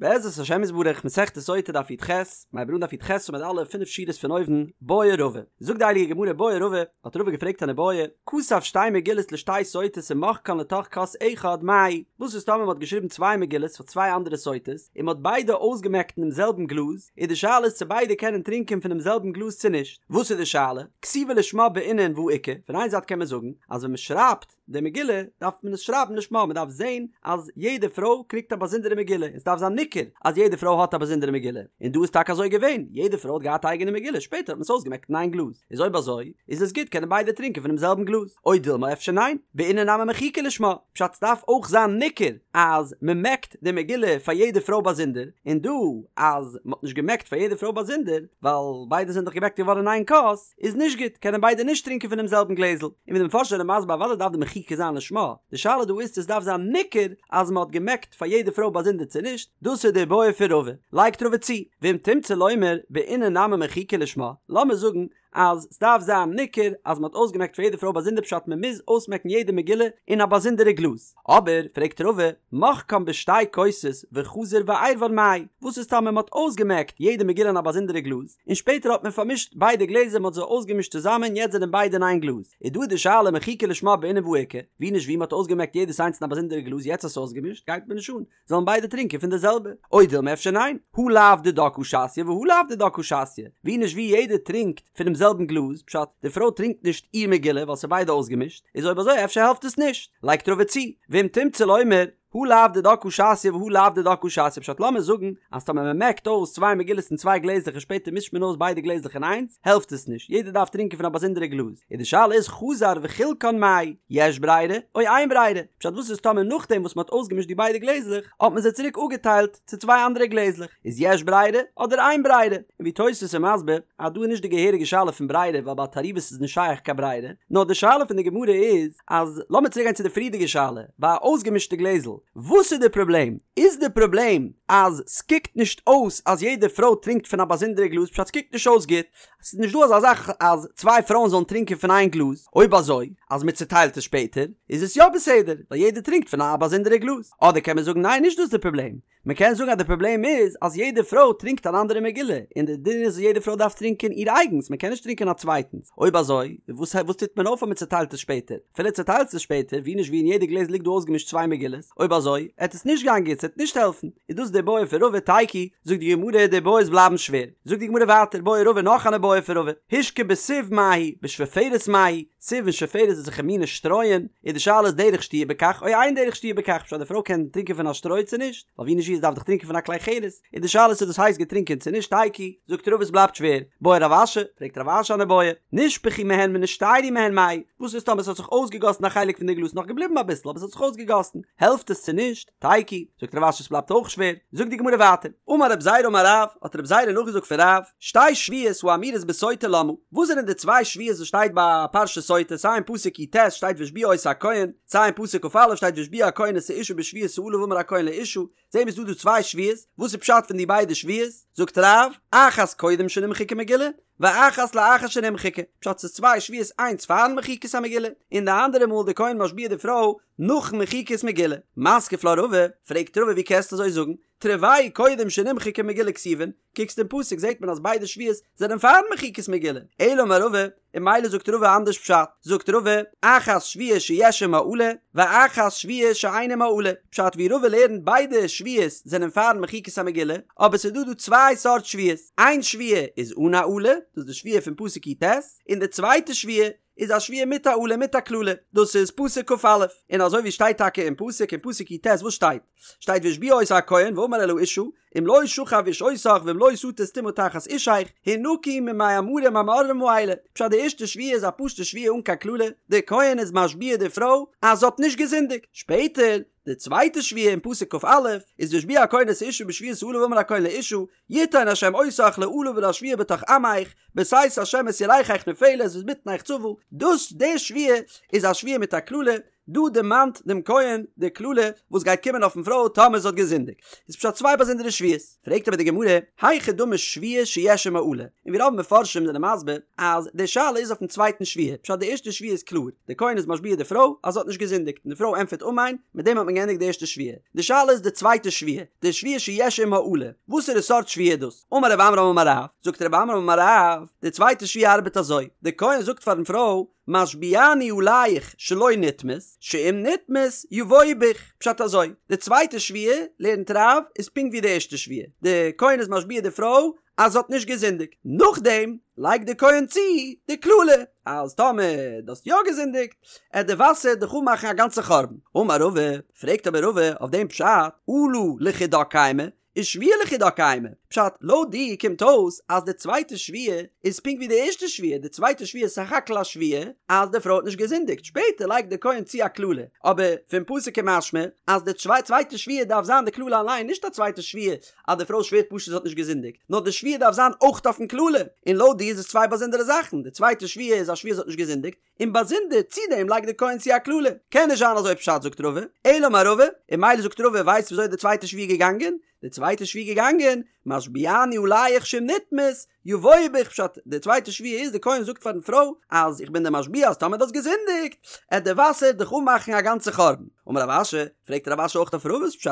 בעזרת השם יתברך מסכת סוטה דף י"ח, מ'הייבט אן דף י"ח עמוד א', פינף שורות פון אויבן, בעי רבא. זאגט די הייליגע גמרא בעי רבא, האט רבא געפרעגט אן איבעיא, כתב שתי מגילות לשתי סוטות ומחקן לתוך כוס אחד, מהו? וואס איז טאמער מען האט געשריבן צוויי מגילות פאר צוויי אנדערע סוטות, און מען האט ביידע אויסגעמעקט אינעם זעלבן גלאז, איז די שאלה איז צו ביידע קענען טרינקען פונעם זעלבן גלאז צו נישט. וואס איז די שאלה? כתיבה לשמה בעינן והא איכא, פון איין זייט קען מען זאגן אז ווען מען שרייבט, די מגילה דארף מען עס שרייבן לשמה, מען דארף זען אז יעדע פרוי קריגט א באזונדערע מגילה, און עס דארף זיין ניכר אז יעדע פרוי האט א באזונדערע מגילה, און דא איז טאקע אזוי געווען, יעדע פרוי האט געהאט א אייגענע מגילה, שפעטער האט מען עס אויסגעמעקט אין איין גלאז, איז אויב אזוי איז עס גוט קענען ביידע טרינקען פונעם זעלבן גלאז, או דילמא אפשר ניין, בעינן נמי מחיקה לשמה, פשט ס'דארף אויך זיין ניכר אז מען מעקט די מגילה פאר יעדע פרוי באזונדער, און דא אז מען האט נישט געמעקט פאר יעדע פרוי באזונדער, ווייל ביידע זענען דאך געמעקט געווארן אין איין כוס, איז נישט גוט, קענען ביידע נישט טרינקען פונעם זעלבן גלעזל, און ווי די מפרשים זענען מסביר אוודאי דארף די מחיקה זיין לשמה, די שאלה דא איז צו עס דארף זיין ניכר אז מען האט געמעקט פאר יעדע פרוי באזונדער צו נישט, דאס איז די בעיא פון רבא, לייגט רבא צו, ואם תמצא לומר בעינן נמי מחיקה לשמה, לאמיר זאגן אז סדארף זיין ניכר אז מען האט אויסגעמעקט פאר יעדע פרוי באזונדער פשט מען מוז אויסמעקן יעדע מגילה אין א באזונדערע גלאז, אבער פרעגט רבא, מחקן בשתי כוסות וחזר ועירבן מאי, וואס איז טאמער מען האט אויסגעמעקט יעדע מגילה אין א באזונדערע גלאז, און שפעטער האט מען פארמישט ביידע גלעזער מען האט זיי אויסגעמישט צוזאמען יעצט זענען ביידע אין איין גלאז, איז דא די שאלה מחיקה לשמה בעינן והא איכא, ווי נישט ווי מען האט אויסגעמעקט יעדעס איינס אין א באזונדערע גלאז יעצט האסטו אויסגעמישט גייט מיר נישט אן, זאלן ביידע טרינקען פון די זעלבע, או דילמא אפשר ניין, הא לאו דידה קא שתיא והא לאו דידה קא שתיא, ווי נישט ווי יעדער טרינקט פונעם זעלבן גלאז, פשט, די פרוי טרינקט נישט איר מגילה ווייל ס'איז ביידע אויסגעמישט, איז אויב אזוי אפשר העלפט עס נישט, לייגט רבא צו, ואם תמצא לומר, הא לאו דידה קא שתיא והא לאו דידה קא שתיא פשט לאמיר זאגן אז טאמער מען מעקט אויס צוויי מגילות אין צוויי גלעזלעך און שפעטער מישט מען אויס ביידע גלעזלעך אין איינס העלפט עס נישט יעדער דארף טרינקען פון א באזונדערע גלאז איז די שאלה איז חזר וחילקן מאי יש ברירה או אין ברירה פשט וואס איז טאמער נאכדעם וואס מען האט אויסגעמישט די ביידע גלעזלעך האט מען זיי צוריק אפגעטיילט צו צוויי אנדערע גלעזלעך איז יש ברירה אדער אין ברירה און ווי תוס' איז מסביר אז דא איז נישט די געהעריגע שאלה פון ברירה ווייל ביי תערובות איז נישט שייך קיין ברירה נאר די שאלה פון די גמרא איז אז לאמיר צוריק גיין צו די פריערדיגע שאלה, ביי א אויסגעמישטע גלעזל, וואס איז די פראבלעם? איז די פראבלעם אז סקוקט נישט אויס אז יעדע פרוי טרינקט פון א באזונדערע גלאז פשט סקוקט נישט אויס גוט, ס'איז נישט דא אזא זאך אז צוויי פרויען זאלן טרינקען פון איין גלאז, אויב אזוי אז מ'צוטיילט עס שפעטער איז עס יא בסדר ווייל יעדער טרינקט פון א באזונדערע גלאז, אדער קען מען זאגן ניין נישט דאס איז די פראבלעם, מען קען זאגן אז די פראבלעם איז אז יעדע פרוי טרינקט אן אנדערע מגילה, און די דין איז אז יעדע פרוי דארף טרינקען איר אייגנס, מען קען נישט טרינקען א צווייטנס, אויב אזוי וואס וואס טוט מען אויף אז מען צעטיילט עס שפעטער? אפילו צעטיילסט עס שפעטער, ווי נישט ווי אין יעדע גלעזל ליגט דא אויסגעמישט צוויי מגילות, אויב אזוי עט עס נישט גיין גוט, ס'עט נישט העלפן, איז דאס די בעיא פון רבא תיקו, זאגט די גמרא די בעיות בלייבן שווער, זאגט די גמרא ווייטער בעי רבא נאך אן איבעיא פון רבא, השקה בסיב מהו, בשפופרת מהו, סיב און שפופרת איז אזעלכע מינע שטרויען, איז די שאלה איז דרך שתיה בכך או אין דרך שתיה בכך, פשט די פרוי קען טרינקען פון א שטרוי צו נישט, ווייל ווי נישט ווי עס דארף דאך טרינקען פון א כלי חרס, איז די שאלה צו דאס הייסט געטרינקען צו נישט תיקו, זאגט רבא עס בלייבט שווער, בעי רב אשי, פרעגט רב אשי אן איבעיא, נשפכו מהן ונשתיירו מהן מהו, וואס איז טאמער עס האט זיך אויסגעגאסן א חלק פון די גלאז נאך געבליבן אביסל אבער עס האט זיך אויסגעגאסן, העלפט עס צו נישט? תיקו, זאגט רב אשי עס בלייבט אויך שווער, זאגט די גמרא ווייטער, אמר רב זירא אמר רב, האט רב זירא נאכגעזאגט פון רב, שתי שבועות האמורות בסוטה למה, וואס זענען די צוויי שבועות וואס שטייט ביי פרשת סוטה, סיי אין פסוק י"ט שטייט והשביע אותה הכהן, סיי אין פסוק כ"א שטייט והשביע הכהן את האשה בשבועת האלה ואמר הכהן לאשה, זעהן מיר ס'דא דא צוויי שבועות, וואס איז פשט פון די ביידע שבועות? זאגט רב, אחת קודם שנמחקה מגילה, ואחת לאחר שנמחקה, פשט ס'איז צוויי שבועות איינס פארן מחיקת המגילה, און די אנדערע מאל די כהן משביע די פרוי נאכן מחיקת מגילה. מתקיף לה רבא, פרעגט רבא ווי קענסטו אזוי זאגן, תרוייהו קודם שנמחקה מגילה כתיבן, קוקסט אין פסוק זעט מען אז ביידע שבועות זענען פארן מחיקת מגילה, אלא אמר רבא, און ממילא זאגט רבא אנדערש פשט, זאגט רבא, אחת שבועה שיש עמה אלה, ואחת שבועה שאין עמה אלה, פשט ווי רבא לערנט ביידע שבועות זענען פארן מחיקת המגילה, אבער ס'איז דא דא צוויי סארט שבועות, איין שבועה איז אן א אלה, דאס איז די שבועה פון פסוק י"ט, און די צווייטע שבועה איז א שבועה מיט א אלה מיט א קללה, דאס איז פסוק כ"א, און אזוי ווי שטייט טאקע אין פסוק אין פסוק י"ט וואס שטייט? שטייט והשביע אותה הכהן ואמר אל האשה אם לא שכב איש אותך ואם לא שטית טומאה תחת אישך הנקי ממי המרים המאררים האלה, פשט די ערשטע שבועה איז א פשוטע שבועה אן קיין קללה, די כהן איז משביע די פרוי אז זי האט נישט געזינדיגט, שפעטער די צווייטע שבועה אין פסוק כ"א איז והשביע הכהן את האשה בשבועת האלה ואמר הכהן לאשה יתן השם אותך לאלה ולשבועה בתוך עמך בתת השם את ירכך נופלת ואת בטנך צבה, דאס די שבועה איז א שבועה מיט א קללה, דא דערמאנט דעם כהן די קללה וואס גייט קומען אויפן פרוי טאמער זי האט געזינדיגט. איז פשט צוויי באזונדערע שבועות. פרעגט אבער די גמרא, היכי דמי שבועה שיש עמה אלה? און ווי רוב מפרשים זענען מסביר אז די שאלה איז אויפן צווייטן שבועה, פשט די ערשטע שבועה איז קלאר, די כהן איז משביע די פרוי אז זי האט נישט געזינדיגט און די פרוי ענטפערט אמן, מיט דעם האט מען געענדיגט די ערשטע שבועה. די שאלה איז די צווייטע שבועה, די שבועה שיש עמה אלה, וואסערע סארט שבועה איז דאס? אמר רב עמרם אמר רב, זאגט רב עמרם אמר רב, די צווייטע שבועה ארבעט אזוי, די כהן זאגט פארן פרוי, משביעני עליך שלא נטמאת, שאם נטמאת יבואו בך, פשט אזוי, די צווייטע שבועה, לערנט רב, איז פונקט ווי די ערשטע שבועה, די כהן איז משביע די פרוי אז זי האט נישט געזינדיגט, נאכדעם לייגט די כהן צו די קללה, אז טאמער דו האסט יא געזינדיגט, עט די וואסער דיך אנמאכן א גאנצע חורבן. אמר רבא, פרעגט אבער רבא אויף דעם פשט, אלה לחודה קיימא, ושבועה לחודה קיימא, פשט, לויט דיר קומט אויס אז די צווייטע שבועה איז פונקט ווי די ערשטע שבועה, די צווייטע שבועה איז סך הכל א שבועה אז די פרוי האט נישט געזינדיגט, שפעטער לייגט די כהן צו א קללה, אבער פון פסוק איז משמע אז די צווייטע שבועה דארף זיין די קללה אליין, נישט א צווייטע שבועה אז די פרוי שווערט פשוט זי האט נישט געזינדיגט, נאר די שבועה דארף זיין אויך אויפן קללה, און לויט דיר איז עס צוויי באזונדערע זאכן, די צווייטע שבועה איז א שבועה זי האט נישט געזינדיגט, און באזונדער צו דעם לייגט די כהן צו א קללה. קען נישט זיין אזוי פשט זאגט רבא, אלא אמר רבא, און ממילא זאגט רבא ווייסט וויאזוי די צווייטע שבועה געגאנגען? די צווייטע שבועה געגאנגען, משביעני עליך שאם נטמאת, יבואו בך פשט, די צווייטע שבועה איז די כהן זאגט פארן פרוי אז איך בין דיר משביע אז טאמער דו האסט געזינדיגט, עט די וואסער דיך אנמאכן א גאנצע חורבן. אמר רב אשי, פרעגט רב אשי אויך אויף רבא'ס פשט,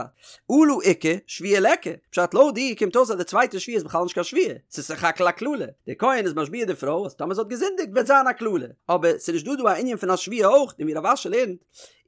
אלה איכא, שבועה ליכא, פשט לויט דיר קומט אויס אז די צווייטע שבועה איז בכלל נישט קיין שבועה, ס'איז סך הכל א קללה, דער כהן איז משביע די פרוי אז טאמער זי האט געזינדיגט וועט זיין א קללה, אבער ס'איז נישט דא דא א ענין פון א שבועה אויך, און ווי רב אשי לערנט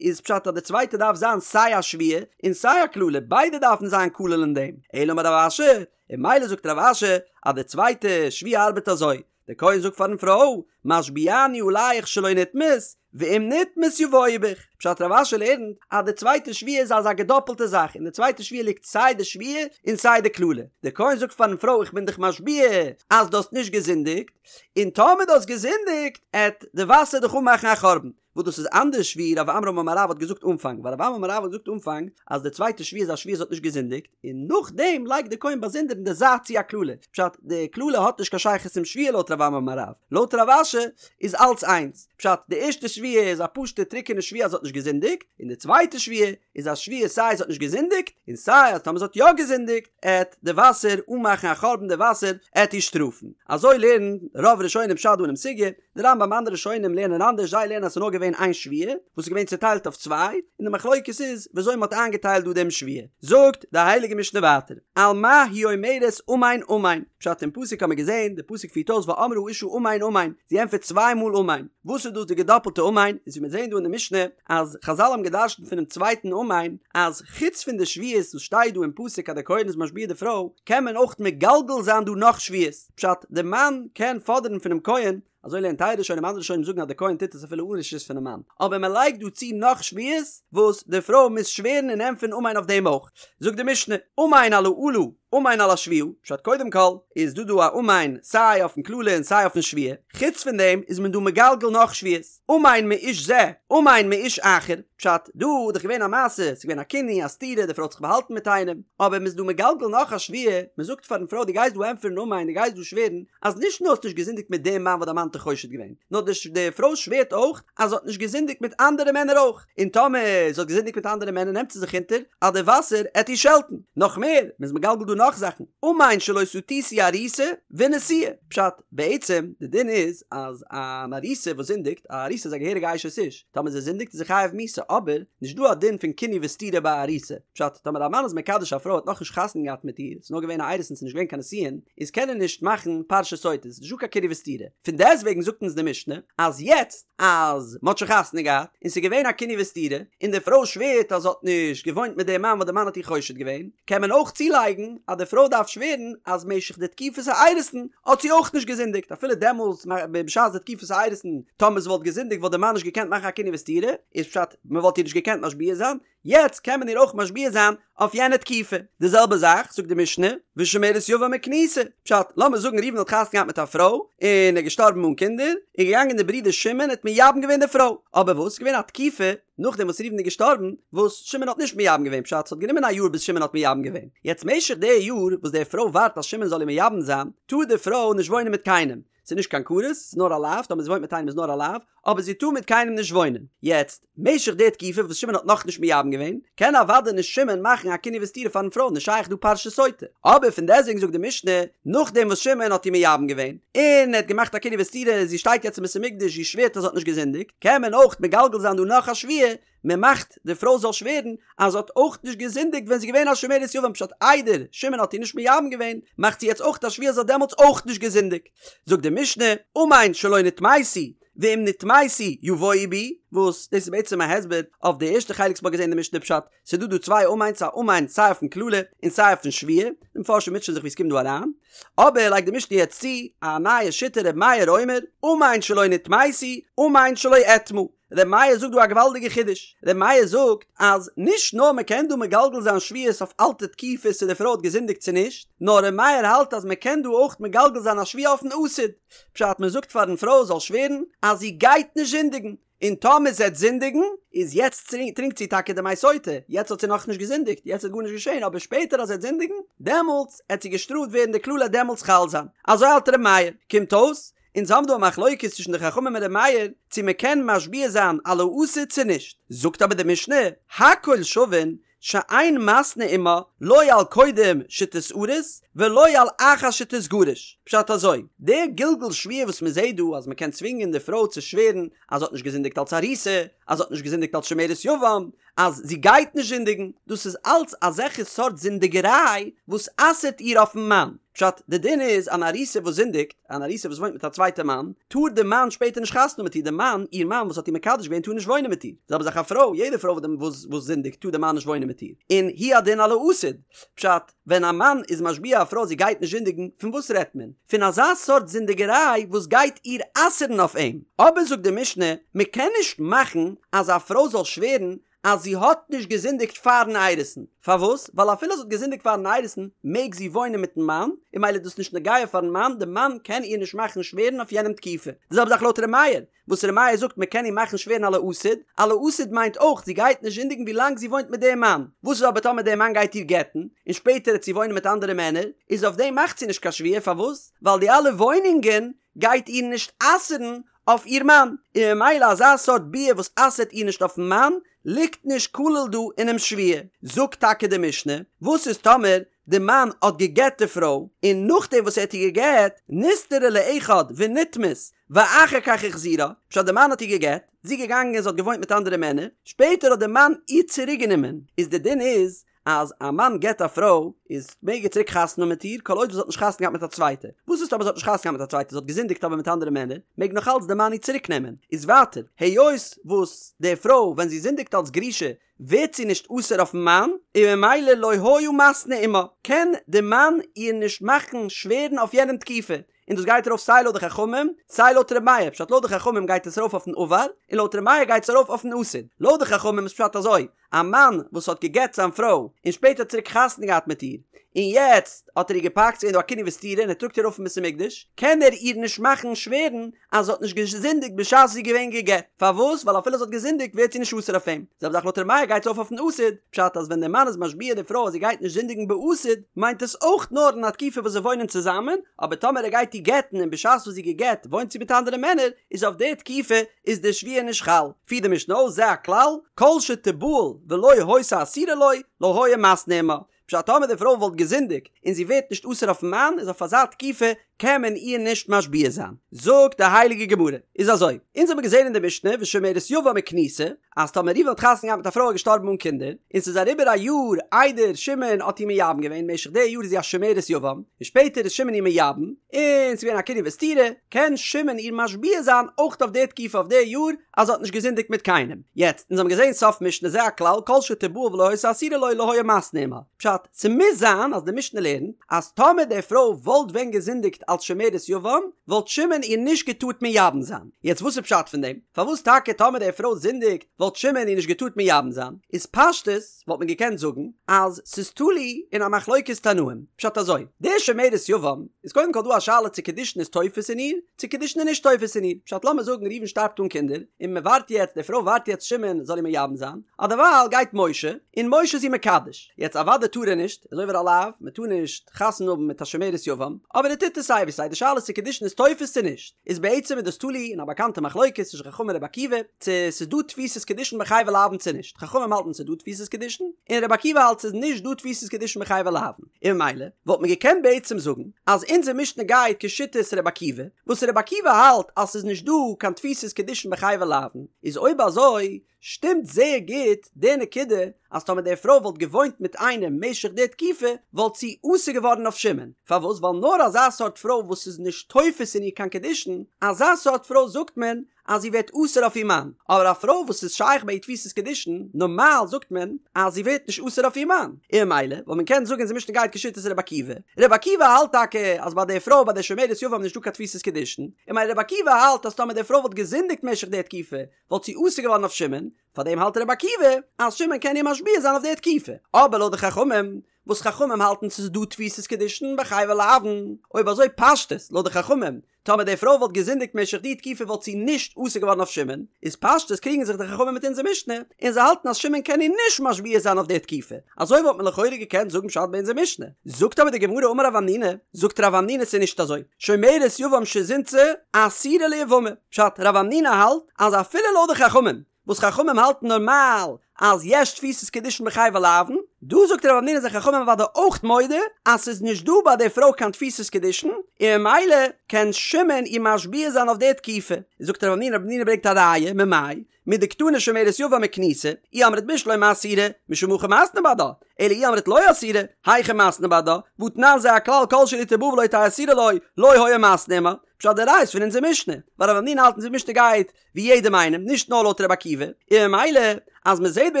איז פשט אז די צווייטע דארף זיין סיי א שבועה און סיי א קללה, ביידע דארפן זיין כולל אין דעם, אלא אמר רב אשי, און ממילא זאגט רב אשי אז די צווייטע שבועה ארבעט אזוי, דער כהן זאגט פארן פרוי, משביעני עליך שלא נטמאת, ואם נטמאת יבואו בך. פשט רב אשי לערנט אז די צווייטע שבועה איז אזא געדאפלטע זאך, אין די צווייטע שבועה ליגט סיי די שבועה און סיי די קללה. דער כהן זאגט פארן פרוי איך בין דיך משביע אז דו האסט נישט געזינדיגט, און טאמער דו האסט געזינדיגט, עט די וואסער דיך אנמאכן א חורבן. וואס דאס איז אנדערש ווי רב עמרם אמר רב האט געזאגט אנפאנג, ווייל רב עמרם אמר רב האט געזאגט אנפאנג אז די צווייטע שבועה איז א שבועה זי האט נישט געזינדיגט, און נאכדעם לייגט די כהן באזונדער אין די זייט צו א קללה, פשט די קללה האט נישט קיין שייכות צום שבועה לויט רב עמרם אמר רב, לויט רב אשי איז אלץ איינס, פשט די ערשטע שבועה איז א פשוטע טרוקענע שבועה אז זי האט נישט געזינדיגט, און די צווייטע שבועה איז א שבועה סיי זי האט נישט געזינדיגט, און סיי אז טאמער זי האט יא געזינדיגט עט די וואסער אנמאכן א חורבן די וואסער עט איר שטראפן, אזוי לערנט רוב ראשונים פשט דא אינעם סוגיא, די רמב"ם אנדערע ראשונים לערנען אנדערש זיי לערנען אז ס'איז נאר געווען איין שבועה וואס איז געווען צוטיילט אויף צוויי און די מחלוקת איז וויאזוי מ'האט איינגעטיילט דא דעם שבועה זאגט די הייליגע משנה ווייטער על מה היא אומרת אמן אמן פשט אין פסוק האט מען געזען די פסוק פירט אויס ואמרה האשה אמן אמן זי ענטפערט צוויי מאל אמן וואס איז דאס די געדאפלטע אמן איז ווי מיר זעען דא אין די משנה אז חזל האבן געדרשנט פונעם צווייטן אמן אז חוץ פון די שבועות וואס שטייט דא אין פסוק אז דער כהן איז משביע די פרוי קען מען אויך מגלגל זיין דא נאך שבועות פשט, די מאן קען פאדערן פונעם כהן, אזוי לערנט טייל ראשונים, אנדערע ראשונים זאגן אז די כהן טוט עס אפילו אן רשות פונעם מאן, אבער מען לייגט דא צו נאך שבועות וואס די פרוי מוז שווערן און ענטפערן אמן אויף דעם אויך. זאגט די משנה, אמן על האלה, אמן על השבועה, פשט קודם כל איז דא דא א אמן סיי אויפן קללה און סיי אויפן שבועה, חוץ פון דעם איז מען דא מגלגל נאך שבועות. אמן מאיש זה, אמן מאיש אחר, פשט, דא איז דאך געווען א מעשה, ס'איז געווען א קינוי, א סתירה, די פרוי האט זיך באהאלטן מיט איינעם, אבער מ'איז דא מגלגל נאך א שבועה, מ'זאגט פארן פרוי דו גייסט דא ענטפערן אמן, דו גייסט דא שווערן, אז נישט נאר האסט נישט געזינדיגט מיט דעם מאן וואס דיין מאן האט דיך חושד געווען, נאר די פרוי שווערט אויך אז זי האט נישט געזינדיגט מיט אנדערע מענער אויך, און טאמער זי האט געזינדיגט מיט אנדערע מענער נעמט זי זיך אונטער אז די וואסער עט איר שעלטן. נאך מער, מ'איז מגלגל דא נאך זאכן, אמן שלא סטיתי ארוסה ונשואה, פשט, בעצם די דין איז אז אן ארוסה וואס זינדיגט, א ארוסה איז א געהעריגע אשת איש, טאמער זי זינדיגט איז זי חייב מיתה, אבער נישט דא א דין פון קינוי וסתירה ביי א ארוסה, פשט, טאמער א מאן איז מקדש א פרוי האט נאכנישט חתונה געהאט מיט איר, ס'איז נאר געווען א אירוסין ס'איז נישט געווען קיין נישואין, איז קען ער נישט מאכן פרשת סוטה, ס'איז נישט דא קיין קינוי וסתירה, פון דעסטוועגן זאגט אונז די משנה אז יעצט אז מ'האט שוין חתונה געהאט און ס'איז געווען א קינוי וסתירה, און די פרוי שווערט אז זי האט נישט געוואוינט מיט דעם מאן וואס די מאן האט איר חושד געווען, קען מען אויך צולייגן אז די פרוי דארף שווערן אז משך די תקופת האירוסין האט זי אויך נישט געזינדיגט, אפילו דעמאלס בשעת די תקופת האירוסין טאמער זי וואלט געזינדיגט וואלט די מאן נישט געקענט מאכן א קינוי וסתירה, איז פשט מען וואלט איר נישט געקענט משביע זיין, יעצט קען מען איר אויך משביע זיין אויף יענע תקופה. די זעלבע זאך זאגט די משנה, ושומרת יבם וכנוסה, פשט, לאמיר זאגן ראובן האט חתונה געהאט מיט א פרוי, און ער איז געשטארבן אן קינדער, איז געגאנגען די ברודער שמעון האט מייבם געווען די פרוי, אבער וואס איז געווען א תקופה נאכדעם וואס ראובן איז געשטארבן, וואס שמעון האט נישט מייבם געווען, פשט, ס'האט גענומען א יאר ביז שמעון האט מייבם געווען, יעצט משך די יאר וואס די פרוי ווארט אז שמעון זאל איר מייבם זיין, טאר די פרוי נישט וואוינען מיט קיינעם, ס'איז נישט קיין כרת, ס'איז נאר א לאו, טאמער זי וואוינט מיט איינעם איז נאר א לאו, אבער זי טאר מיט קיינעם נישט וואוינען. יעצט, משך די תקופה וואס שמעון האט נאכנישט מייבם געווען, קען אוודאי נישט שמעון מאכן א קינוי וסתירה פארן פרוי, נישט שייך דא פרשת סוטה. אבער פון דעסטוועגן זאגט די משנה, נאכדעם וואס שמעון האט איר מייבם געווען, און ער האט געמאכט א קינוי וסתירה, זי שטייט יעצט אין בית המקדש, זי שווערט אז זי האט נישט געזינדיגט, קען מען אויך מגלגל זיין דא נאך א שבועה, מען מאכט די פרוי זאל שווערן אז זי האט אויך נישט געזינדיגט ווען זי איז געווען א שומרת יבם פשט איידער שמעון האט איר נישט מייבם געווען מאכט זי יעצט אויך א שבועה אז זי האט דעמאלטס אויך נישט געזינדיגט זאגט די משנה אמן שלא נטמאתי ואם נטמאתי יבואו בי וואס דאס איז בעצם א הסבר אויף די ערשטע חלק וואס מ'האט געזען אין די משנה פשט ס'איז דא דא צוויי אמן'ס א אמן סיי אויפן קללה און סיי אויפן שבועה די מפרשים מוטשען זיך ווי עס קומט דא אריין אבער לייגט די משנה יעצט צו א נייע שיטה ר' מאיר אומר אמן שלא נטמאתי אמן שלא אטמא ר' מאיר זאגט דא א געוואלדיגע חידוש, ר' מאיר זאגט אז נישט נאר מען קען דא מגלגל זיין שבועות אויף אלטע תקופות צו די פרוי האט געזינדיגט צו נישט, נאר ר' מאיר האלט אז מען קען דא אויך מגלגל זיין א שבועה אויפן עתיד, פשט מען זאגט פארן פרוי זאל שווערן אז זי גייט נישט זינדיגן, און טאמער זי וועט זינדיגן, איז יעצט טרינקט זי טאקע די מי סוטה, יעצט האט זי נאכנישט געזינדיגט, יעצט איז גארנישט געשען, אבער שפעטער אז זי וועט זינדיגן, דעמאלטס עט זי געשטראפט ווערן די קללה דעמאלטס חל זיין, אזוי האלט ר' מאיר, קומט אויס אונז האבן דא א מחלוקת צווישן די חכמים און ר' מאיר צו מען קען משביע זיין על העתיד צו נישט, זאגט אבער די משנה, הכל שווין שאין מתנה עמה לא על קודם שתתארס ולא על אחר שתתגרש, פשט אזוי, די גלגול שבועה וואס מען זעט דא אז מען קען צווינגען די פרוי צו שווערן אז זי האט נישט געזינדיגט אלס ארוסה, אז זי האט נישט געזינדיגט אלס שומרת יבם, אז זי גייט נישט זינדיגן, דאס איז אלץ אזעלכע סארט זינדיגעריי וואס אסר'ט איר אויפן מאן. פשט, די דין איז אן ארוסה וואס זינדיגט, אן ארוסה וואס וואוינט מיט א צווייטע מאן, טאר די מאן שפעטער נישט חתונה האבן מיט איר, די מאן, איר מאן וואס האט איר מקדש געווען טאר נישט וואוינען מיט איר. זעלבע זאך א פרוי, יעדע פרוי וואס זינדיגט טאר די מאן נישט וואוינען מיט איר. און הוא הדין על העתיד. פשט, ווען א מאן איז משביע א פרוי זי גייט נישט זינדיגן, פון וואס רעדט מען? פון אזא סארט זינדיגעריי וואס גייט איר אסר'ן אויף אים. אבער זאגט די משנה, מען קען נישט מאכן אז א פרוי זאל שווערן אז זי האט נישט געזינדיגט פאר'ן אירוסין. פארוואס? ווייל אפילו זי האט געזינדיגט פאר'ן אירוסין, מעג זי וואוינען מיט'ן מאן, און ממילא איז דאס נישט נוגע פאר'ן מאן, די מאן קען איר נישט מאכן שווערן אויף יענעם תקופה. די זעלבע זאך לויט ר' מאיר, וואס ר' מאיר זאגט מען קען איר מאכן שווערן על העתיד, על העתיד מיינט אויך זי גייט נישט זינדיגן ווי לאנג זי וואוינט מיט דעם מאן, וואס איז אבער טאמער דער מאן גייט איר גט'ן, און שפעטער העט זי וואוינען מיט אנדערע מענער, איז אויף דעם מאכט זי נישט קיין שבועה, פארוואס? ווייל די אלע וואוינונגען גייט איר נישט אסר'ן אויף איר מאן, און ממילא אזא סארט ביאה וואס אסר'ט איר נישט אויפן מאן, ליגט נישט כלול דא אינעם שבועה. זאגט טאקע די משנה, וואס איז טאמער די מאן האט גע'גט די פרוי, און נאכדעם וואס ער האט איר גע'גט, נסתרה לאחד ונטמאת, ואחר כך החזירה, פשט די מאן האט איר גע'גט, זי איז געגאנגען זי האט געוואוינט מיט אנדערע מענער, שפעטער האט די מאן איר צוריק גענומען, איז די דין איז אז א מאן גט א פרוי איז מעג ער צוריק חתונה האבן מיט איר כל עוד וואס זי האט נישט חתונה געהאט מיט א צווייטע, וואס איז טאמער זי האט נישט חתונה געהאט מיט א צווייטע זי האט געזינדיגט אבער מיט אנדערע מענער, מעג נאך אלץ די מאן איר צוריק נעמען, איז ווייטער היות וואס די פרוי ווען זי זינדיגט אלס גרושה ווערט זי נישט אסור אויפן מאן, און ממילא לא היה מתנה עמה, קען די מאן איר נישט מאכן שווערן אויף יענעם תקופה, און דאס גייט ארויף סיי לויט די חכמים, סיי לויט ר' מאיר, פשט לויט די חכמים גייט עס ארויף אויפן עבר, און לויט ר' מאיר גייט עס ארויף אויפן עתיד, לויט די חכמים איז פשט אזוי, א מאן וואס האט גע'גט זיין פרוי, און שפעטער צוריק חתונה געהאט מיט איר, און יעצט האט ער איר געפאקט, ס'איז געווען דא א קינוי וסתירה און ער טראגט איר ארויף אין בית המקדש, קען ער איר נישט מאכן שווערן אז זי האט נישט געזינדיגט בשעת זי איז געווען גע'גט, פארוואס? ווייל אפילו זי האט געזינדיגט ווערט זי נישט אסור אויף אים. זעלבע זאך לויט ר' מאיר גייט עס ארויף אויפן עתיד, פשט אז ווען דער מאן איז משביע די פרוי אז זי גייט נישט זינדיגן בעתיד, מיינט עס אויך נאר אין א תקופה וואס זיי וואוינען צוזאמען, אבער טאמער ער גייט איר גט'ן און בשעת וואס זי איז גע'גט וואוינט זי מיט אנדערע מענער, איז אויף די תקופה איז די שבועה נישט חל. פירט די משנה אויס זה הכלל, כל שתבעל ולא היתה אסורה לו, לא היה מתנה עמה. פשט טאמער די פרוי וואלט געזינדיגט און זי ווערט נישט אסור אויפן מאן איז אויף אזא תקופה קען מען איר נישט משביע זיין. זאגט די הייליגע גמרא, איז אזוי, אונז האבן געזען אין די משנה ושומרת יבם וכנוסה, אז טאמער ראובן האט חתונה געהאט מיט א פרוי געשטארבן אן קינדער, און ס'איז אריבער א יאר איידער שמעון האט איר מייבם געווען, משך די יאר איז זי א שומרת יבם, און שפעטער איז שמעון איר מייבם, און ס'איז געווען א קינוי וסתירה, קען שמעון איר משביע זיין אויך אויף די תקופה אויף די יאר, אז זי האט נישט געזינדיגט מיט קיינעם. יעצט, אונז האבן געזען סוף משנה זה הכלל כל שתבעל ולא היתה אסורה לו לא היה מתנה עמה. פשט, ס'מוז זיין אז די משנה לערנט אז טאמער די פרוי וואלט ווען געזינדיגט אלס שומרת יבם, וואלט שמעון איר נישט געטארט מייבם זיין. יעצט וואס איז פשט פון דעם? פארוואס טאקע טאמער די פרוי זינדיגט וואלט שמעון איר נישט געטארט מייבם זיין? איז פשטות וואלט מען געקענט זאגן אז ס'איז תלוי אין א מחלוקת תנאים. פשט אזוי, די שומרת יבם איז קודם כל דא א שאלה צו קידושין איז תופס אין איר, צו קידושין איז נישט תופס אין איר, פשט לאמיר זאגן ראובן שטארבט אן קינדער, און מען ווארט יעצט, די פרוי ווארט יעצט שמעון זאל איר מייבם זיין, אדערווייל גייט משה, און משה איז איר מקדש, יעצט אוודאי טאר ער נישט, ער איז עובר א לאו, מען טאר נישט חתונה האבן מיט א שומרת יבם, אבער ער טוט עס. סיי ווי סיי די שאלה איז צו קידושין איז תופס צו נישט, איז בעצם איז דאס תלוי אין א באקאנטע מחלוקת צווישן חכמים און רבי עקיבא, צו ס'איז דא תפיסת קידושין בחייבי לאוין צו נישט, חכמים האלטן ס'איז דא תפיסת קידושין, און רבי עקיבא האלט ס'איז נישט דא תפיסת קידושין בחייבי לאוין, און ממילא וואלט מען געקענט בעצם זאגן אז אונזער משנה גייט כשיטת רבי עקיבא, וואס רבי עקיבא האלט אז ס'איז נישט דא קיין תפיסת קידושין בחייבי לאוין, איז אויב אזוי שטימט זייער גוט די נקודה אז טאמער די פרוי וואלט געוואוינט מיט איינעם משך די תקופה וואלט זי אסור געווארן אויף שמעון, פארוואס ווייל נאר אזא סארט פרוי וואס איז נישט תופס אין איר קיין קידושין, אזא סארט פרוי זאגט מען אז זי ווערט אסור אויף איר מאן, אבער א פרוי וואס איז שייך ביי איר תפיסת קידושין, נארמאל זאגט מען אז זי ווערט נישט אסור אויף איר מאן, און ממילא וואלט מען קענען זאגן אונזער משנה גייט כשיטת רבי עקיבא, רבי עקיבא האלט טאקע אז ביי די פרוי ביי די שומרת יבם נישט דא קיין תפיסת קידושין, און ממילא רבי עקיבא האלט אז טאמער די פרוי וואלט געזינדיגט משך די תקופה וואלט זי אסור געווארן אויף שמעון, פארדעם האלט רבי עקיבא אז שמעון קען איר משביע זיין אויף די תקופה, אבער לויט די חכמים, וואס חכמים האלטן ס'איז דא תפיסת קידושין בחייבי לאוין, אויב אזוי פשטות לויט די חכמים, טאמער די פרוי וואלט געזינדיגט משך די תקופה וואלט זי נישט אסור געווארן אויף שמעון, איז פשטות קריגן זיך די חכמים מיט אונזער משנה, און זיי האלטן אז שמעון קען איר נישט משביע זיין אויף די תקופה, אזוי וואלט מען לכאורה געקענט זאגן פשט ביי אונזער משנה. זאגט אבער די גמרא אמר רב המנונא, זאגט רב המנונא ס'איז נישט אזוי, שומרת יבם שזינתה אסורה ליבמה, פשט, רב המנונא האלט אז אפילו לויט די חכמים, וואס חכמים האלטן נארמאל אז יש תפיסת קידושין בחייבי לאוין, דא זאגט רב המנונא זענען חכמים אוודאי אויך מודה אז ס'איז נישט דא ביי די פרוי קיין תפיסת קידושין, און ממילא קען שמעון איר משביע זיין אויף די תקופה. זאגט רב המנונא, רב המנונא ברענגט א ראיה, ממאי? מדקתני שומרת יבם וכנוסה, אי אמרת בשלמא אסירה, משום הכי מתנו בהדה, אלא אי אמרת לא אסירה, היכי מתנו בהדה, והתנן זה הכלל כל שלא תבא ולא תהא אסורה לו, לא היה מתנה עמה. פשט די ראיה איז פון אונזער משנה, ווייל רב המנונא האלט אונזער משנה גייט ווי יעדעם איינעם, נישט נאר לויט רבי עקיבא, און ממילא אז מען זעט ביי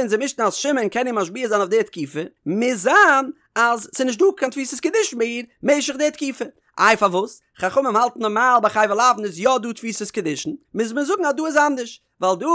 אונזער משנה אז שמעון קען איר משביע זיין אויף די תקופה, מוז זיין אז ס'איז נישט דא קיין תפיסת קידושין ביי איר משך די תקופה. איי פארוואס? חכמים האלטן נארמאל ביי חייבי לאוין איז יא דא תפיסת קידושין, מוז מען זאגן אז דא איז אנדערש, ווייל דא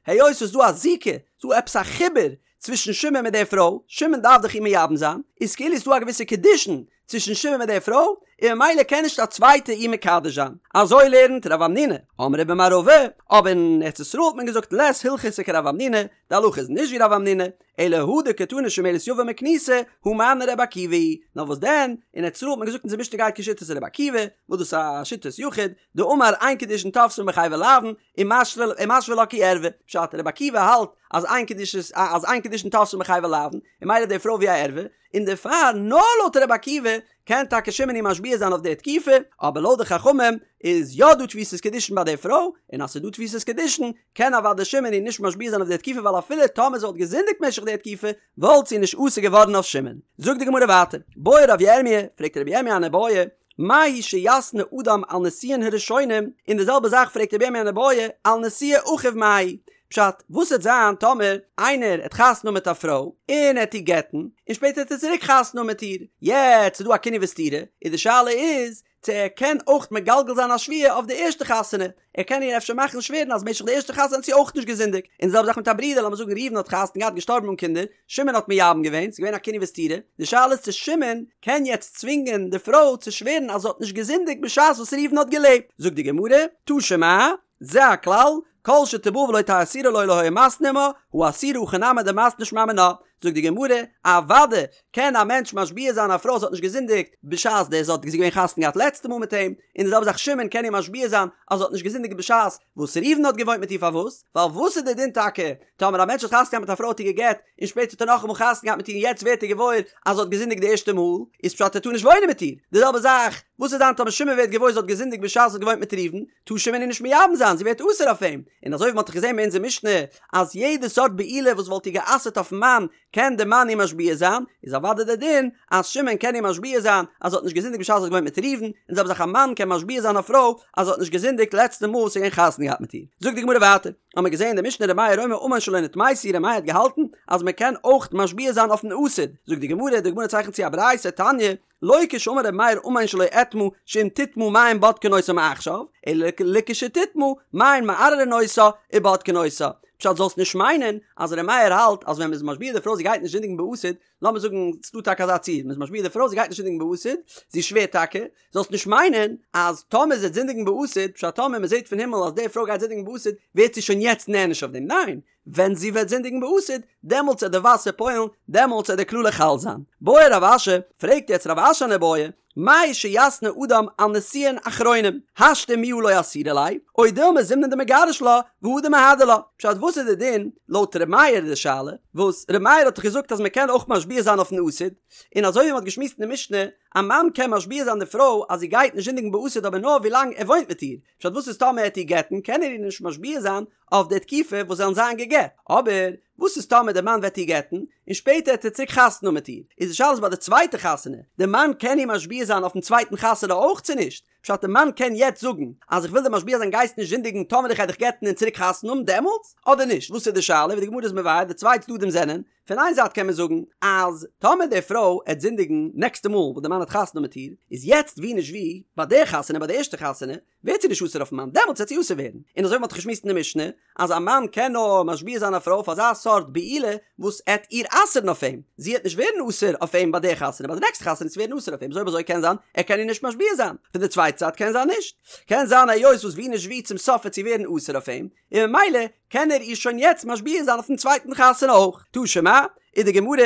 היות ס'איז דא א זיקה, ס'איז דא עפעס א חיבור צווישן שמעון מיט די פרוי, שמעון דארף דאך איר מייבם זיין, איז כאילו ס'איז דא א געוויסע קידושין צווישן שמעון מיט די פרוי, און ממילא קען נישט א צווייטע איר מקדש זיין. אזוי לערנט רב המנונא. אמרי במערבא, אבער אין ארץ ישראל האט מען געזאגט לית הלכתא כרב המנונא, די הלכה איז נישט ווי רב המנונא, אלא הא דקתני שומרת יבם וכנוסה, הא מני רבי עקיבא היא נאר וואס דען, אין ארץ ישראל האט מען געזאגט אונזער משנה גייט כשיטת רבי עקיבא, וואס דאס איז א שיטת יחיד, דאמר אין קידושין תופסין בחייבי לאוין, ומשוי לה כי ערווה, פשט, רבי עקיבא האלט אז אין קידושין אז אין קידושין תופסין בחייבי לאוין, און ממילא די פרוי ווי א ערווה, און דערפאר נאר לויט רבי עקיבא קען טאקע שמעון איר משביע זיין אויף די תקופה, אבער לויט די חכמים איז יא דא תפיסת קידושין ביי די פרוי, און אז ס'איז דא תפיסת קידושין קען אוודאי שמעון איר נישט משביע זיין אויף די תקופה ווייל אפילו טאמער זי וואלט געזינדיגט משך די תקופה וואלט זי נישט אסור געווארן אויף שמעון. זאגט די גמרא ווייטער, בעי רב ירמי', פרעגט רבי ירמי' אן איבעיא, מהו שיתנה אדם על נישואין הראשונים, און די זעלבע זאך פרעגט רבי ירמי' אן איבעיא, על נישואי אחיו מהו? פשט, וואס וועט זיין טאמער איינער העט חתונה האבן מיט א פרוי, און ער העט איר גט'ן, און שפעטער העט ער צוריק חתונה האבן מיט איר, יעצט איז דא א קינוי וסתירה, און די שאלה איז, צו ער קען אויך מגלגל זיין א שבועה אויף די ערשטע חתונה, ער קען איר אפשר מאכן שווערן אז משך די ערשטע חתונה האט זי אויך נישט געזינדיגט, און די זעלבע זאך מיט א ברודער, לאמיר זאגן ראובן האט חתונה געהאט געשטארבן אן קינדער, שמעון האט מייבם געווען, ס'איז געווען א קינוי וסתירה, די שאלה איז צו שמעון קען יעצט צווינגען די פרוי צו שווערן אז זי האט נישט געזינדיגט בשעת וואס ראובן האט געלעבט, זאגט די גמרא, תא שמע, זה הכלל, כל שתבא ולא תהא אסורה לו לא היה מתנה עמה, הא אסירה הכי נמי דמתנה שמע מינה, זאגט די גמרא, אוודאי קען א מענטש משביע זיין א פרוי זי האט נישט געזינדיגט בשעת די זי האט געווען חתונה געהאט לעצטע מאל מיט אים, און די זעלבע זאך שמעון קען איר משביע זיין אז זי האט נישט געזינדיגט בשעת וואס ראובן האט געוואוינט מיט איר פארוואס? ווייל וואס איז די דין טאקע טאמער א מענטש האט חתונה געהאט מיט א פרוי האט איר גע'גט און שפעטער האט ער נאכאמאל חתונה געהאט מיט איר און יעצט ווערט ער געוואויר אז זי האט געזינדיגט די ערשטע מאל איז פשט ער טאר נישט וואוינען מיט איר, די זעלבע זאך וואס איז דען טאמער שמעון ווערט געוואויר זי האט געזינדיגט בשעת זי האט געוואוינט מיט ראובן טאר שמעון איר נישט מייבם זיין, זי ווערט אסור אויף אים, און אזוי ווי מען האט דאך געזען ביי אונזער משנה אז יעדע סארט בעילה וואס וואלט איר גע'אסר'ט אויפן מאן קען די מאן איר משביע זיין, איז אוודאי דער דין אז שמעון קען איר משביע זיין אז זי האט נישט געזינדיגט בשעת זי האט געוואוינט מיט ראובן, און די זעלבע זאך א מאן קען משביע זיין א פרוי אז זי האט נישט געזינדיגט לעצטע מאל וואס ער איז געווען חתונה געהאט מיט איר. זאגט די גמרא ווייטער, האמיר געזען אין די משנה ר' מאיר אומר אמן שלא נטמאתי ר' מאיר האט געהאלטן אז מען קען אויך משביע זיין אויפן עתיד, זאגט די גמרא, די גמרא צייכנט צו א ברייתא, תניא, לא כשאמר ר' מאיר אמן שלא אטמא שאם תטמא מים בודקין אותה מעכשיו, אלא לכשתטמא מים מערערין אותה ובודקין אותה. פשט זאלסט נישט מיינען אז ר' מאיר האלט אז ווען מ'איז משביע די פרוי זי גייט נישט זינדיגן בעתיד, לאמיר זאגן ס'דא טאקע אזא ציור, מ'איז משביע די פרוי זי גייט נישט זינדיגן בעתיד, זי שווערט טאקע, זאלסט נישט מיינען אז טאמער זי וועט זינדיגן בעתיד, פשט טאמער מ'זעט פון הימל אז די פרוי גייט זינדיגן בעתיד ווערט זי שוין יעצט נענש אויף דעם, ניין! ווען זי וועט זינדיגן בעתיד, דעמאלטס עט די וואסער פועל'ן, דעמאלטס עט די קללה חל זיין. בעי רב אשי, פרעגט יעצט רב אשי אן איבעיא, מהו שיתנה אדם על נישואין אחרונים, השתא מיהא לא אסירא ליה, או דילמא זימנין דמגרש לה, והדר מהדר לה. פשט וואס איז די דין, לויט ר' מאיר די שאלה, וואס ר' מאיר האט דאך געזאגט אז מען קען אויך משביע זיין אויפן עתיד, און אזוי ווי מען האט געשמועסט אין די משנה, א מאן קען משביע זיין די פרוי אז זי גייט נישט זינדיגן בעתיד אבער נאר ווילאנג ער וואוינט מיט איר, פשט וואס איז טאמער ער עט איר גט'ן קען ער איר נישט משביע זיין אויף די תקופה וואס זיי וועלן זיין גע'גט, אבער וואס איז טאמער די מאן וועט איר גט'ן און שפעטער עט ער צוריק חתונה האבן מיט איר, איז די שאלה איז ביי די צווייטע חתונה, די מאן קען איר משביע זיין אויפן צווייטן חתונה אויך צו נישט? פשט די מאן קען יעצט זאגן אז איך וויל דיר משביע זיין גייסט נישט זינדיגן טאמער איך גיי דיך גט'ן און צוריק חתונה האבן דעמאלטס אדער נישט, וואס איז די שאלה ווי די גמרא איז מבאר די צוויי צדדים זענען פון איין זייט קען מען זאגן אז טאמער די פרוי עט זינדיגן נעקסטע מאל וואס די מאן האט חתונה מיט איר, איז יעצט ווי נישט ווי ביי די חתונה ביי די ערשטע חתונה ווערט זי נישט אסור אויפן מאן דעמאלטס וועט זי אסור ווערן, און אזוי ווי מ'האט געשמועסט אין די משנה אז א מאן קען נאר משביע זיין א פרוי אויף אזא סארט בעילה וואס עט איר אסר'ן אויף אים, זי עט נישט ווערן אסור אויף אים ביי די חתונה ביי די נעקסטע חתונה עט זי ווערן אסור אויף אים, אזוי אויב אזוי קען זיין ער קען איר נישט משביע זיין, פון די צווייטע זייט קען זיין נישט, קען זיין היות וואס ווי נישט ווי צום סוף וועט זי ווערן אסור אויף אים, און ממילא קען ער איר שוין יעצט משביע זיין אויפן צווייטן חתונה אויך. תא שמע, איז די גמרא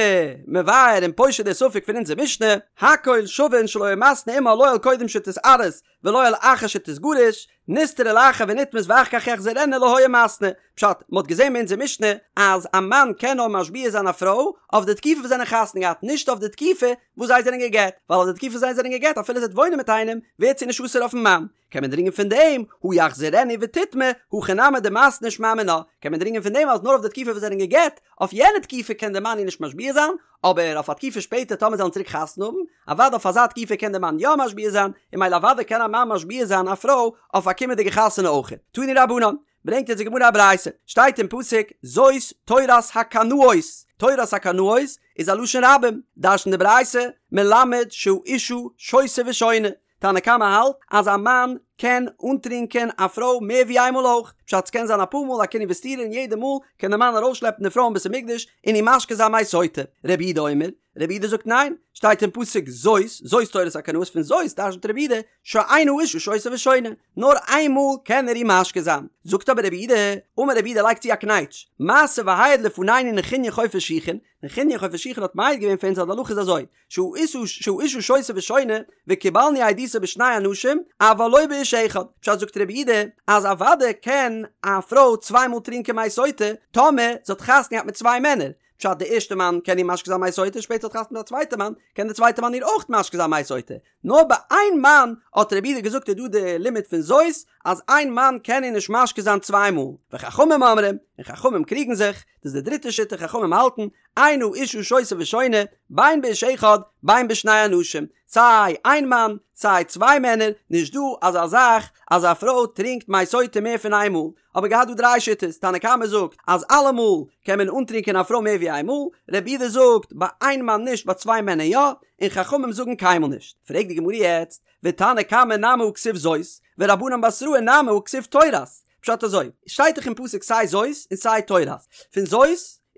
מבאר און פושט די ספק פון אונזער משנה, הכל שווין שלא היה מתנה עמה לא על קודם שתתארס ולא על אחר שתתגרש, נסתרה לאחר ונטמאת ואחר כך יחזירנה לא היה מתנה. פשט, מ'האט געזען ביי אונזער משנה אז א מאן קען נאר משביע זיין א פרוי אויף די תקופה וואס זיי זענען חתונה געהאט, נישט אויף די תקופה וואס זיי זענען גע'גט, ווייל אויף די תקופה וואס זיי זענען גע'גט אפילו זי וועט וואוינען מיט איינעם ווערט זי נישט אסור אויפן מאן. קען מען דרינגען פון דעם, הא יחזירנה ותטמא, הכא נמי דמתנה שמע מינה, קען מען דרינגען פון דעם אז נאר אויף די תקופה וואס זיי זענען גע'גט, אויף יענע תקופה קען דער מאן איר נישט משביע זיין, אבער אויף א תקופה שפעטער טאמער זיי וועלן צוריק חתונה האבן, אוודאי אויף אזא תקופה קען דער מאן יא משביע זיין, און ממילא אוודאי קען א מאן משביע זיין א פרוי אויף א קומענדיגע חתונה אויכעט. תנו רבנן, ברענגט אונז די גמרא א ברייתא, שטייט אין פסוק, זאת תורת הקנאות, תורת הקנאות איז א לשון רבים, דרש'נט די ברייתא, מלמד שהאשה שותה ושונה, תנא קמא האלט אז א מאן קען אנטרינקען א פרוי מער ווי איינמאל אויך, פשט ס'קען זיין אפאר מאל א קינוי וסתירה און יעדע מאל קען די מאן ארויסשלעפן די פרוי אין בית המקדש און איר משקה זיין מי סוטה. רבי יהודה אומר, רבי יהודה זאגט ניין, שטייט אין פסוק זאת, זאת תורת הקנאות פון זאת דרש'נט רבי יהודה שאין האשה שותה ושונה, נאר איין מאל קען ער איר משקה זיין. זאגט אבער רבי יהודה, אמר רבי יהודה לייגט צו א קנייטש, מעשה והעיד לפנינו נחוניא חופר שיחין, נחוניא חופר שיחין האט מעיד געווען פאר אונז אז די הלכה איז אזוי, שהאשה שותה ושונה וקיבלנו עדותו בשני אנשים אבל לא באיש אחד, פשט זאגט רבי יהודה אז אוודאי קען א פרוי צוויי מאל טרינקען מי סוטה טאמער זי האט חתונה געהאט מיט צוויי מענער, פשט די ערשטע מאן קען איר משקה זיין מי סוטה שפעטער האט חתונה מיט א צווייטע מאן קען די צווייטע מאן איר אויך משקה זיין מי סוטה, נאר ביי איין מאן האט רבי יהודה געזאגט איז דא די לימוד פון זאת אז איין מאן קען איר נישט משקה זיין צוויי מאל, וחכמים אומרים, און חכמים קריגן זיך, דאס איז די דריטע שיטה חכמים האלטן אין האשה שותה ושונה, בין באיש אחד בין בשני אנשים, סיי איין מאן סיי צוויי מענער, נישט דא אזא זאך אז א פרוי טרינקט מי סוטה מער פון איין מאל, האבן מיר געהאט דא דריי שיטות, תנא קמא זאגט אז אלעמאל קען מען אנטרינקען א פרוי מער ווי איין מאל, רבי יהודה זאגט ביי איין מאן נישט ביי צוויי מענער יא, און חכמים זאגן קיינמאל נישט. פרעגט די גמרא יעצט, ותנא קמא נמי הא כתיב זאת, ורבנן בתראי נמי הא כתיב תורת, פשט אזוי, שטייט דאך אין פסוק סיי זאת און סיי תורת, פון זאת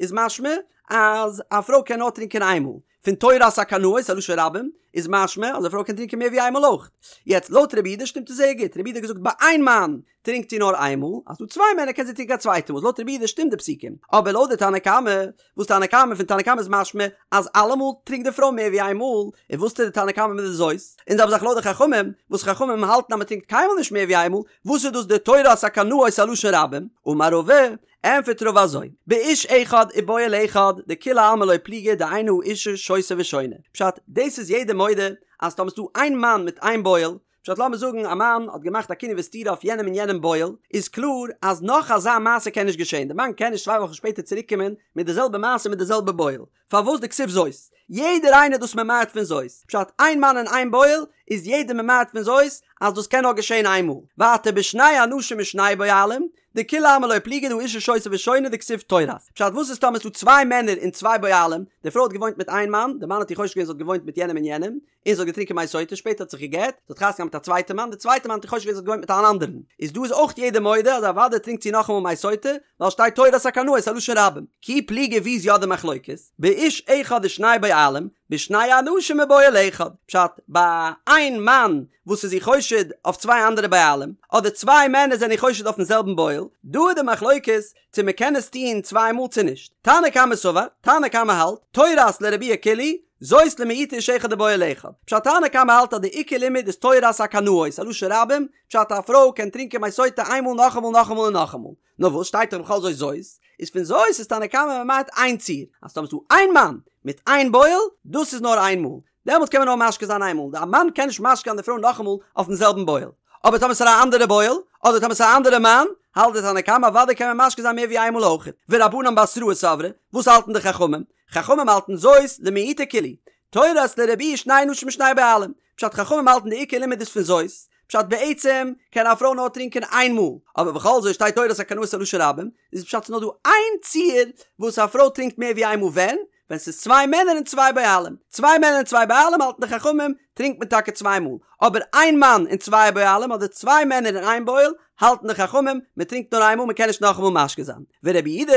איז משמע אז א פרוי קען נאר טרינקען איין מאל, פון תורת הקנאות א לשון רבים איז משמע אז א פרוי קען טרינקען מער ווי איין מאל אויך. יעצט לויט רבי יהודה שטימט עס זייער גוט, רבי יהודה האט געזאגט ביי איין מאן טרינקט זי נאר איין מאל, אז ס'דא צוויי מענער קען זי טרינקען א צווייטע מאל, איז לויט רבי יהודה שטימט די פסוקים, אבער לויט די תנא קמא, וואס תנא קמא פון תנא קמא איז משמע אז אלעמאל טרינקט די פרוי מער ווי איין מאל, און וואס טוט די תנא קמא מיט די זאת? און זעלבע זאך לויט די חכמים, וואס חכמים האלטן אז מען טרינקט קיינמאל נישט מער ווי איין מאל, וואס איז דאס די תורת הקנאות א לשון רבים? אמר רבא, ענפערט רבא אזוי, באיש אחד ובועל אחד, דכולי עלמא לא פליגי דאין האשה שותה ושונה, פשט, דאס איז יעדער מודה אז טאמער ס'דא איין מאן מיט איין בועל, פשט לאמיר זאגן א מאן האט געמאכט א קינוי וסתירה אויף יענעם און יענעם בועל, איז קלאר אז נאך אזא מעשה קען נישט געשען, די מאן קען נישט צוויי וואכן שפעטער צוריק קומען מיט די זעלבע מעשה מיט די זעלבע בועל, פארוואס דכתיב זאת? יעדער איינער איז דאס ממעט פון זאת, פשט איין מאן און איין בועל איז יעדער ממעט פון זאת אז דאס קען נאר געשען איין מאל, ווייטער בשני אנשים ושני בועלים, דכולי עלמא לא פליגי דהאשה שותה ושונה דכתיב תורת. פשט וואס איז טאמער ס'דא צוויי מענער און צוויי בועלים, די פרוי האט געוואוינט מיט איין מאן, די מאן האט איר חושד געווען זי האט געוואוינט מיט יענעם און יענעם, און זי האט געטרינקען מי סוטה, שפעטער האט זיך גע'גט, זי האט חתונה געהאט מיט א צווייטע מאן, די צווייטע מאן האט איר חושד געווען זי האט געוואוינט מיט אן אנדערן, איז דא איז אויך יעדער מודה אז אוודאי טרינקט זי נאכאמאל מי סוטה, ווייל שטייט תורת הקנאות א לשון רבים. כי פליגי ווי איז יא די מחלוקת? באיש אחד ושני בועלים, בשני אנשים ובועל אחד, פשט, ביי איין מאן וואס איז איר חושד אויף צוויי אנדערע בעלים, אדער צוויי מענער זענען איר חושד אויפן זעלבן בועל, דא איז די מחלוקת צו מען קען עס טוהן צוויי מאל צו נישט. תנא קמא סבר, תנא קמא האלט, תורת לרבויי כולהו, זאת למעוטי איש אחד ובועל אחד. פשט תנא קמא האלט אז די עיקר לימוד איז תורת הקנאות, א לשון רבים, פשט א פרוי קען טרינקען מי סוטה איינמאל נאכאמאל נאכאמאל און נאכאמאל. נאר וואס שטייט דאך בכל זאת זאת, איז פון זאת איז תנא קמא ממעט איין ציור, אז טאמער ס'דא איין מאן מיט איין בועל, דאס איז נאר איין מאל, דעמאלטס קען מען נאר משקה זיין איין מאל, די א מאן קען נישט משקה זיין די פרוי נאכאמאל אויפן זעלבן בועל, אבער טאמער ס'איז א אנדערע בועל, אדער טאמער ס'איז א אנדערע מאן, האלט די תנא קמא אוודאי קען מען משקה זיין מער ווי איין מאל אויכעט. ורבנן בתראי סברי, וואס האלטן די חכמים? חכמים האלטן זאת למעוטי כולהו, תורת לרבויי שני אנשים ושני בעלים, פשט חכמים האלטן די עיקר לימוד איז פון זאת, פשט בעצם קען א פרוי נאר טרינקען איין מאל, אבער בכל זאת שטייט תורת הקנאות א לשון רבים, איז פשט ס'נאר דא איין ציור וואס א פרוי טרינקט מער ווי איין מאל ווען? ווען ס'איז צוויי מענער און צוויי בועלים, צוויי מענער און צוויי בעלים האלטן די חכמים טרינקט מען טאקע צוויי מאל, אבער איין מאן און צוויי בועלים אדער צוויי מענער און איין בועל האלטן די חכמים מען טרינקט נאר איין מאל מען קען נישט נאכאמאל משקה זיין, ורבי יהודה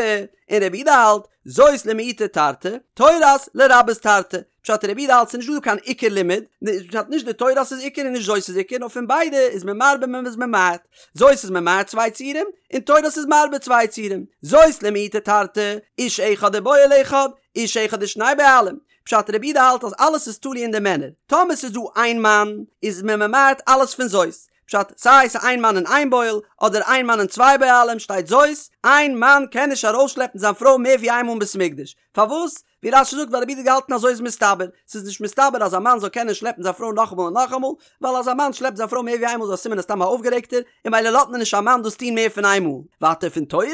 און רבי יהודה האלט זאת למעוטי תרתי, תורת לרבות תרתי, פשט רבי יהודה האלט ס'איז נישט דא קיין עיקר לימוד, פשט נישט די תורת איז עיקר און נישט זאת איז עיקר נאר פון ביידע איז מען מרבה מען איז ממעט, זאת איז ממעט צוויי ציורים און תורת איז מרבה צוויי ציורים, זאת למעוטי תרתי, איש אחד ובועל אחד, איש אחד ושני בעלים, פשט רבי יהודה האלט אז אלעס איז תלוי אין די מענער, טאמער ס'איז דא איין מאן איז מען ממעט אלעס פון זאת, פשט, סיי ס'איז איין מאן און איין בועל, אדער איין מאן און צוויי בעלים, שטייט זאת, איין מאן קען נישט ארויסשלעפן זיין פרוי מער ווי איין מאל אין בית המקדש. פארוואס? ווי רש"י זאגט ווייל רבי יהודה האט געהאלטן אזוי איז מסתבר, ס'איז נישט מסתבר אז א מאן זאל קענען שלעפן זיין פרוי נאכאמאל און נאכאמאל, ווייל אז א מאן שלעפט זיין פרוי מער ווי איינמאל איז א סימן ער איז סתם א אויפגערעגטער, און ממילא לאזט מען נישט א מאן דאס טון מער פון איינמאל. ווייטער פון תורת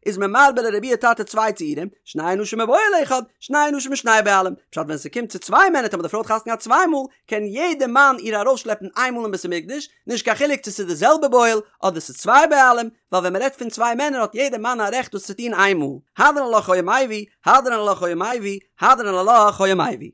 איז מען מרבה לרבויי תרתי צוויי ציורים, שני אנשים ובועל אחד, שני אנשים ושני בעלים, פשט ווען ס'קומט צו צוויי מענער טאמער די פרוי האט חתונה געהאט צוויי מאל, קען יעדע מאן איר ארויסשלעפן איין מאל אין בית המקדש, נישט קיין חילוק צו ס'איז די זעלבע בועל אדער ס'איז צוויי בעלים, ווייל ווען מ'רעדט פון צוויי מענער האט יעדע מאן א רעכט דאס צו טון איין מאל. הדרן עלך היה מביא, הדרן עלך היה מביא, הדרן עלך היה מביא.